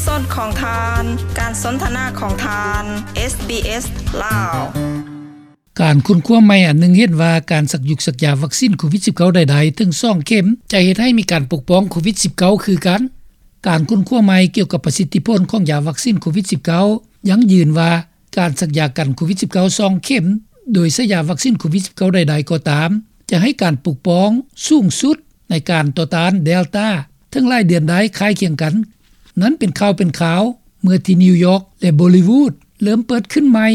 ສອນຂອງທ່ານ ການສົນທະນາຂອງທ່ານ ເອສບີເອສ ລາວ. ການຄົ້ນຄວ້າໃໝ່ອັນໜຶ່ງເຫັນວ່າ ການສັກຢຸກສັກຢາວັກຊີນໂຄວິດສິບເກົ້າໃດໆ ເຖິງສອງເຂັມ ຈະເຮັດໃຫ້ມີການປົກປ້ອງໂຄວິດສິບເກົ້າຄືກັນ. ການຄົ້ນຄວ້າໃໝ່ກ່ຽວກັບປະສິດທິຜົນຂອງຢາວັກຊີນໂຄວິດສິບເກົ້າ ຢັ້ງຢືນວ່າ ການສັກຢາກັນໂຄວິດສິບເກົ້າ ສອງເຂັມ ໂດຍໃຊ້ຢາວັກຊີນໂຄວິດສິບເກົ້າໃດໆກໍຕາມ ຈະໃຫ້ການປົກປ້ອງສູງສຸດໃນການຕໍ່ຕ້ານເດລຕາ ເຖິງຫຼາຍເດືອນໄດ້ຄ້າຍຄຽງກັນ. ນັ້ນເປັນຂ່າວເປັນຄາວ ເມື່ອທີ່ນິວຢອກ ແລະ ບໍລິວູດ ເລີ່ມເປີດຂຶ້ນໃໝ່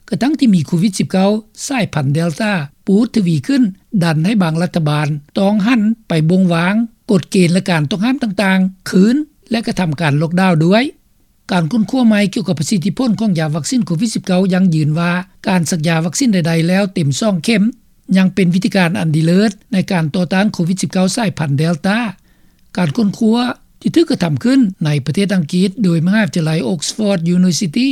ກະທັ່ງທີ່ມີໂຄວິດສິບເກົ້າ ສາຍພັນເດລຕາ ປູດທະວີຂຶ້ນ ດັນໃຫ້ບາງລັດຖະບານຕ້ອງຫັນໄປບົ່ງວາງກົດເກນ ແລະ ການຕ້ອງຫ້າມຕ່າງໆຄືນ ແລະ ກະທຳການລັອກດາວດ້ວຍ. ການຄົ້ນຄວ້າໃໝ່ກ່ຽວກັບປະສິດທິຜົນຂອງຢາວັກຊີນໂຄວິດສິບເກົ້າ ຢັ້ງຢືນວ່າ ການສັກຢາວັກຊີນໃດໆແລ້ວເຕັມສອງເຂັມ ຍັງເປັນວິທີການອັນດີເລີດໃນການຕໍ່ຕ້ານໂຄວິດສິບເກົ້າ ສາຍພັນເດລຕາ. ການຄົ້ນຄວ້າທີ່ຖືກກະທຳຂຶ້ນໃນປະເທດອັງກິດ ໂດຍມະຫາວິທະຍາໄລ Oxford University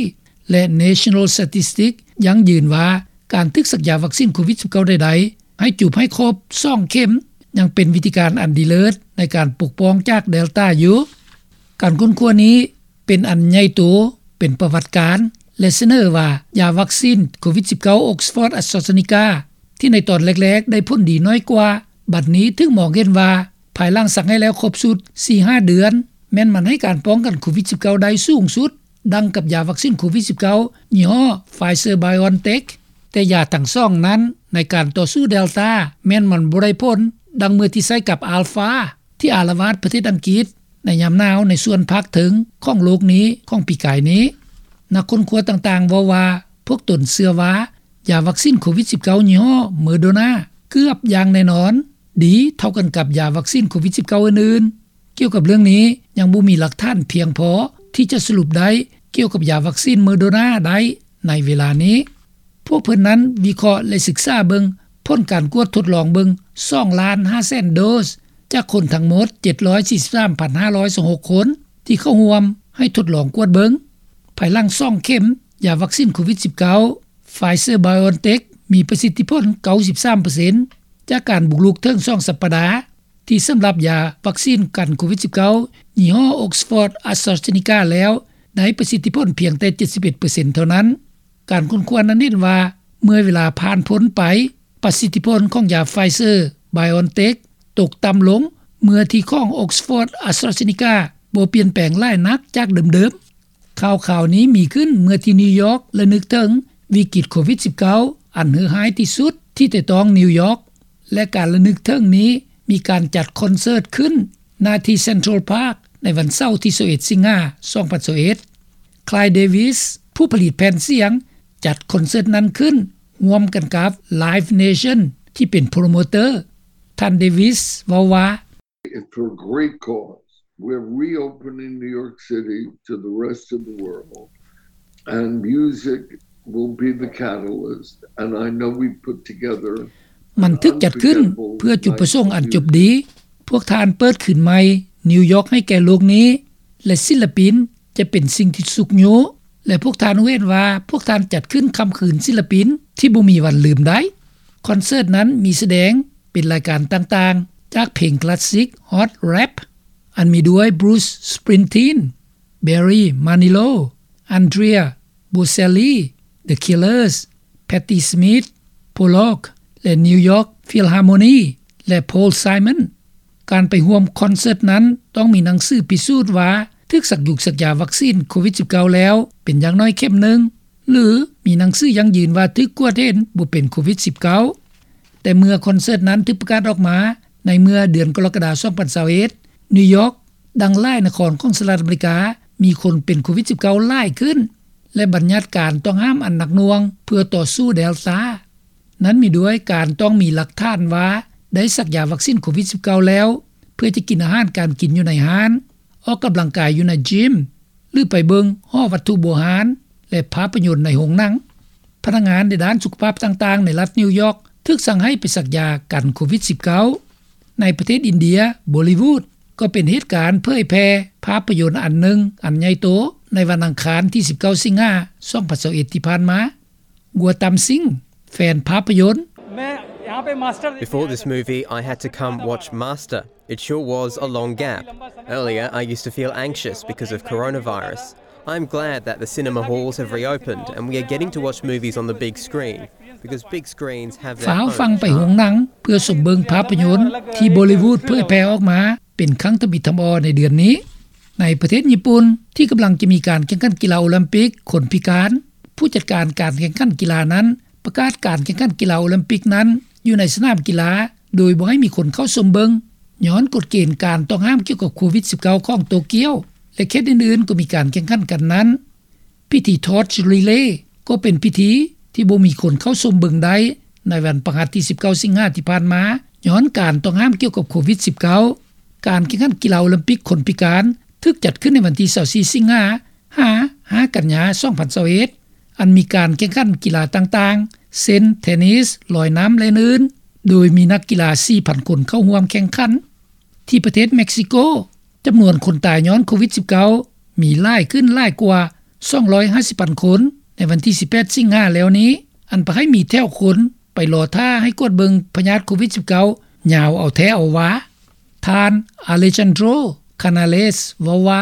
ແລະ National Statistics ຢັ້ງຢືນວ່າ ການຖືກສັກຢາວັກຊີນໂຄວິດສິບເກົ້າໃດໆ ໃຫ້ຈູບໃຫ້ຄົບສອງເຂັມ ຍັງເປັນວິທີການອັນດີເລີດໃນການປົກປ້ອງຈາກເດລຕາຢູ່. ການຄົ້ນຄວ້ານີ້ເປັນອັນໃຫຍ່ໂຕ ເປັນປະຫວັດການ ແລະ ສະເໜີວ່າ ຢາວັກຊີນໂຄວິດສິບເກົ້າ Oxford AstraZeneca ທີ່ໃນຕອນແລກໆໄດ້ຜົນດີນ້ອຍກວ່າ ບັດນີ້ຖືກມອງເຫັນວ່າ ພາຍຫຼັງສັກໃຫ້ແລ້ວຄົບຊຸດສີ່ຫ້າເດືອນ ແມ່ນມັນໃຫ້ການປ້ອງກັນໂຄວິດສິບເກົ້າໄດ້ສູງສຸດ ດັ່ງກັບຢາວັກຊີນໂຄວິດສິບເກົ້າ ຍີ່ຫໍ້ Pfizer-BioNTech. ແຕ່ຢາທັງສອງນັ້ນ ໃນການຕໍ່ສູ້ເດລຕາ ແມ່ນມັນບໍ່ໄດ້ຜົນ ດັ່ງເມື່ອທີ່ໃຊ້ກັບ Alpha ທີ່ອາລະວາດປະເທດອັງກິດ ໃນຍາມໜາວໃນສ່ວນພາກເທິງຂອງໂລກນີ້ຂອງປີກາຍນີ້. ນັກຄົ້ນຄວ້າຕ່າງໆເວົ້າວ່າ ພວກຕົນເຊື່ອວ່າ ຢາວັກຊີນໂຄວິດສິບເກົ້າ ຍີ່ຫໍ້ Moderna ເກືອບຢ່າງແນ່ນອນ ດີເທົ່າກັນກັບຢາວັກຊີນໂຄວິດສິບເກົ້າອື່ນໆ. ກ່ຽວກັບເລື່ອງນີ້ ຍັງບໍ່ມີຫຼັກຖານພຽງພໍທີ່ຈະສະຫຼຸບໄດ້ກ່ຽວກັບຢາວັກຊີນ Moderna ໄດ້ໃນເວລານີ້. ພວກເພິ່ນນັ້ນວິເຄາະ ແລະ ສຶກສາເບິ່ງຜົນການກວດທົດລອງເບິ່ງສອງລ້ານຫ້າແສນໂດສ ຈາກຄົນທັງໝົດເຈັດຮ້ອຍສີ່ສິບສາມພັນຫ້າຮ້ອຍຊາວຫົກຄົນ ທີ່ເຂົ້າຮ່ວມໃຫ້ທົດລອງກວດເບິ່ງ. ພາຍຫຼັງສອງເຂັມຢາວັກຊີນໂຄວິດສິບເກົ້າ Pfizer-BioNTech ມີປະສິດທິຜົນເກົ້າສິບສາມເປີເຊັນ ຈາກການບຸກລຸກເຖິງສອງສັບປະດາ ທີ່ສຳລັບຢາວັກຊີນກັນໂຄວິດສິບເກົ້າ ຍີ່ຫໍ້ Oxford AstraZeneca ແລ້ວ ໄດ້ປະສິດທິຜົນພຽງແຕ່ເຈັດສິບເອັດເປີເຊັນເທົ່ານັ້ນ. ການຄົ້ນຄວ້ານັ້ນເຫັນວ່າ ເມື່ອເວລາຜ່ານພົ້ນໄປ ປະສິດທິຜົນຂອງຢາ Pfizer-BioNTech ຕົກຕ່ຳລົງ ເມື່ອທີ່ຂອງ Oxford AstraZeneca ບໍ່ປ່ຽນແປງຫຼາຍນັກຈາກເດີມໆ. ຂ່າວຄາວນີ້ມີຂຶ້ນເມື່ອທີ່ນິວຢອກລະນຶກເຖິງວິກິດໂຄວິດສິບເກົ້າ ອັນເຫືອຮ້າຍທີ່ສຸດທີ່ແຕະຕ້ອງນິວຢອກ ແລະ ການລະນຶກເຖິງນີ້ມີການຈັດຄອນເສີດຂຶ້ນ ນາທີ່ Central Park ໃນວັນເສົາທີຊາວເອັດ ສິງຫາ ສອງພັນຊາວເອັດ. Clive Davis ຜູ້ຜະລິດແຜ່ນສຽງ ຈັດຄອນເສີດນັ້ນຂຶ້ນ ຮ່ວມກັນກັບ Live Nation ທີ່ເປັນໂປຣໂມເຕີ. ທ່ານ Davis ເວົ້າວ່າ It's for a great cause. We're reopening New York City to the rest of the world, and music will be the catalyst. And I know we put together ມັນຖືກຈັດຂຶ້ນເພື່ອຈຸດປະສົງອັນຈົບດີ. ພວກທ່ານເປີດຄືນໃໝ່ນິວຢອກໃຫ້ແກ່ໂລກນີ້ ແລະ ສິນລະປິນຈະເປັນສິ່ງທີ່ຊຸກຍູ້ ແລະ ພວກທ່ານຮູ້ເຫັນວ່າພວກທ່ານຈັດຂຶ້ນຄ່ຳຄືນສິນລະປິນທີ່ບໍ່ມີວັນລືມໄດ້. ຄອນເສີດນັ້ນມີສະແດງເປັນລາຍການຕ່າງໆ ຈາກເພງຄລາສສິກ Hot Rap ອັນມີດ້ວຍ Bruce Springsteen, Barry Manilow, Andrea Bocelli, The Killers, Patti Smith, Pollock ແລະ New York Philharmonic ແລະ Paul Simon. ການໄປຮ່ວມຄອນເສີດນັ້ນຕ້ອງມີໜັງສືພິສູດວ່າຖືກສັກຢຸກສັກຢາວັກຊີນໂຄວິດສິບເກົ້າແລ້ວເປັນຢ່າງໜ້ອຍເຂັມໜຶ່ງ ຫຼື ມີໜັງສືຢັ້ງຢືນວ່າຖືກກວດເຫັນບໍ່ເປັນໂຄວິດສິບເກົ້າ. ແຕ່ເມື່ອຄອນເສີດນັ້ນຖືກປະກາດອອກມາໃນເມື່ອເດືອນກໍລະກະດາ ສອງພັນຊາວເອັດ ນິວຢອກ ດັ່ງຫຼາຍນະຄອນຂອງສະຫະລັດອາເມລິກາ ມີຄົນເປັນໂຄວິດສິບເກົ້າຫຼາຍຂຶ້ນ ແລະ ບັນຍັດການຕ້ອງຫ້າມອັນໜັກໜ່ວງເພື່ອຕໍ່ສູ້ເດລຕາ. ນັ້ນມີດ້ວຍການຕ້ອງມີຫຼັກຖານວ່າໄດ້ສັກຢາວັກຊີນໂຄວິດສິບເກົ້າແລ້ວ ເພື່ອຈະກິນອາຫານການກິນຢູ່ໃນຮ້ານ, ອອກກຳລັງກາຍຢູ່ໃນຢິມ ຫຼື ໄປເບິ່ງຫໍວັດຖຸໂບຮານ ແລະ ພາບພະຍົນໃນໂຮງໜັງ. ພະນັກງານໃນດ້ານສຸຂະພາບຕ່າງໆໃນລັດນິວຢອກ ຖືກສັ່ງໃຫ້ໄປສັກຢາກັນໂຄວິດສິບເກົ້າ. ໃນປະເທດອິນເດຍ, ບໍລິວູດ ກໍເປັນເຫດການເຜີຍແຜ່ພາບພະຍົນອັນໜຶ່ງອັນໃຫຍ່ໂຕໃນວັນອັງຄານທີສິບເກົ້າ ສິງຫາ ສອງພັນຊາວເອັດ ທີ່ຜ່ານມາ. Gautam Singh ແຟນພາບພະຍົນ Main Before this movie, I had to come watch Master. It sure was a long gap. Earlier, I used to feel anxious because of coronavirus. I'm glad that the cinema halls have reopened and we are getting to watch movies on the big screen, because big screens have their ຟ້າວ own ຟັ່ງໄປໂຮງ charm. ໜັງ ເພື່ອຊົມເບິ່ງພາບພະຍົນ ທີ່ບໍລິວູດເຜີຍແຜ່ອອກມາ ເປັນຄັ້ງທຳອິດທຳອໍໃນເດືອນນີ້. ໃນປະເທດຍີ່ປຸ່ນ ທີ່ກຳລັງຈະມີການແຂ່ງຂັນກິລາໂອລິມປິກ ຄົນພິການ ຜູ້ຈັດການການແຂ່ງຂັນກິລານັ້ນ ປະກາດການແຂ່ງຂັນກິລາໂອລິມປິກນັ້ນ ຢູ່ໃນສະໜາມກິລາ ໂດຍບໍ່ໃຫ້ມີຄົນເຂົ້າຊົມເບິ່ງ ຍ້ອນກົດເກນການຕ້ອງຫ້າມກ່ຽວກັບໂຄວິດ-19 ຂອງໂຕກຽວ ແລະ ເຂດອື່ນໆ ກໍມີການແຂ່ງຂັນກັນນັ້ນ. ພິທີ Torch Relay ກໍເປັນພິທີທີ່ບໍ່ມີຄົນເຂົ້າຊົມເບິ່ງໄດ້ ໃນວັນພະຫັດທີ 19 ສິງຫາ ທີ່ຜ່ານມາ ຍ້ອນການຕ້ອງຫ້າມກ່ຽວກັບໂຄວິດ-19. ການແຂ່ງຂັນກິລາໂອລິມປິກຄົນພິການ ຖືກຈັດຂຶ້ນໃນວັນທີ 24 ສິງຫາ ຫາ 5 ກັນຍາ 2021 ອັນມີການແຂ່ງຂັນກິລາຕ່າງໆ ເຊັ່ນ ເທນນິສ, ລອຍນ້ຳ ແລະ ອື່ນໆ ໂດຍມີນັກກິລາ 4,000 ຄົນເຂົ້າຮ່ວມແຂ່ງຂັນ. ທີ່ປະເທດເມັກຊິໂກ ຈຳນວນຄົນຕາຍຍ້ອນໂຄວິດ-19 ມີຫຼາຍຂຶ້ນຫຼາຍກວ່າ 250 ພັນຄົນ ໃນວັນທີ 18 ສິງຫາ ແລ້ວນີ້ ອັນພາໃຫ້ມີແຖວຄົນໄປລໍຖ້າໃຫ້ກວດເບິ່ງພະຍາດໂຄວິດ-19 ຍາວເອົາແທ້ເອົາວ່າ. ທ່ານ Alejandro Canales ເວົ້າວ່າ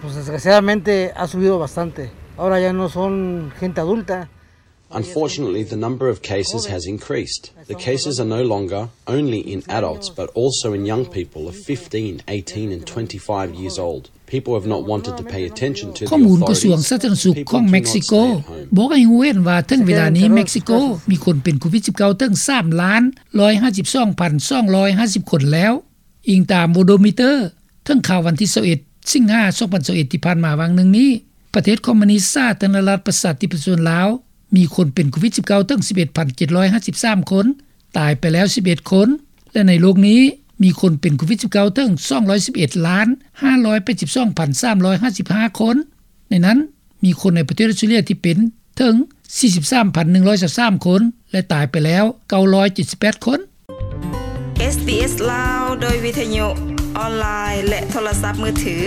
Pues desgraciadamente ha subido bastante. Ahora ya no son gente adulta. Unfortunately, the number of cases has increased. The cases are no longer only in adults, but also in young people of fifteen, eighteen, and twenty-five years old. People have not wanted to pay attention to the ຂໍ້ມູນກະຊວງ authorities. ສາທາລະນະສຸກຂອງເມັກຊິໂກ ບອກໃຫ້ຮູ້ເຫັນວ່າ ເຖິງເວລານີ້ເມັກຊິໂກ ມີຄົນເປັນໂຄວິດ-19 ເຖິງ 3 ລ້ານ 152 ພັນ 250 ຄົນແລ້ວ. ອີງຕາມ Worldometer ເຖິງຂ່າວວັນທີ 21 ສິງຫາ 2021 ທີ່ຜ່ານມາຫວ່າງໜຶ່ງນີ້ ປະເທດຄອມມູນິດສາທາລະນະລັດ ປະຊາທິປະໄຕ ລາວ ມີຄົນເປັນໂຄວິດ-19 ເຖິງ 11 ພັນ 753 ຄົນ, ຕາຍໄປແລ້ວ 11 ຄົນ ແລະ ໃນໂລກນີ້ ມີຄົນເປັນໂຄວິດ-19 ເຖິງ 211 ລ້ານ 582 ພັນ 355 ຄົນ. ໃນນັ້ນ ມີຄົນໃນປະເທດອົດສະຕຣາເລຍທີ່ເປັນເຖິງ 43 ພັນ 123 ຄົນ ແລະ ຕາຍໄປແລ້ວ 978 ຄົນ. ເອສບີເອສ ລາວ ໂດຍວິທະຍຸ ອອນລາຍ ແລະ ໂທລະສັບມືຖື.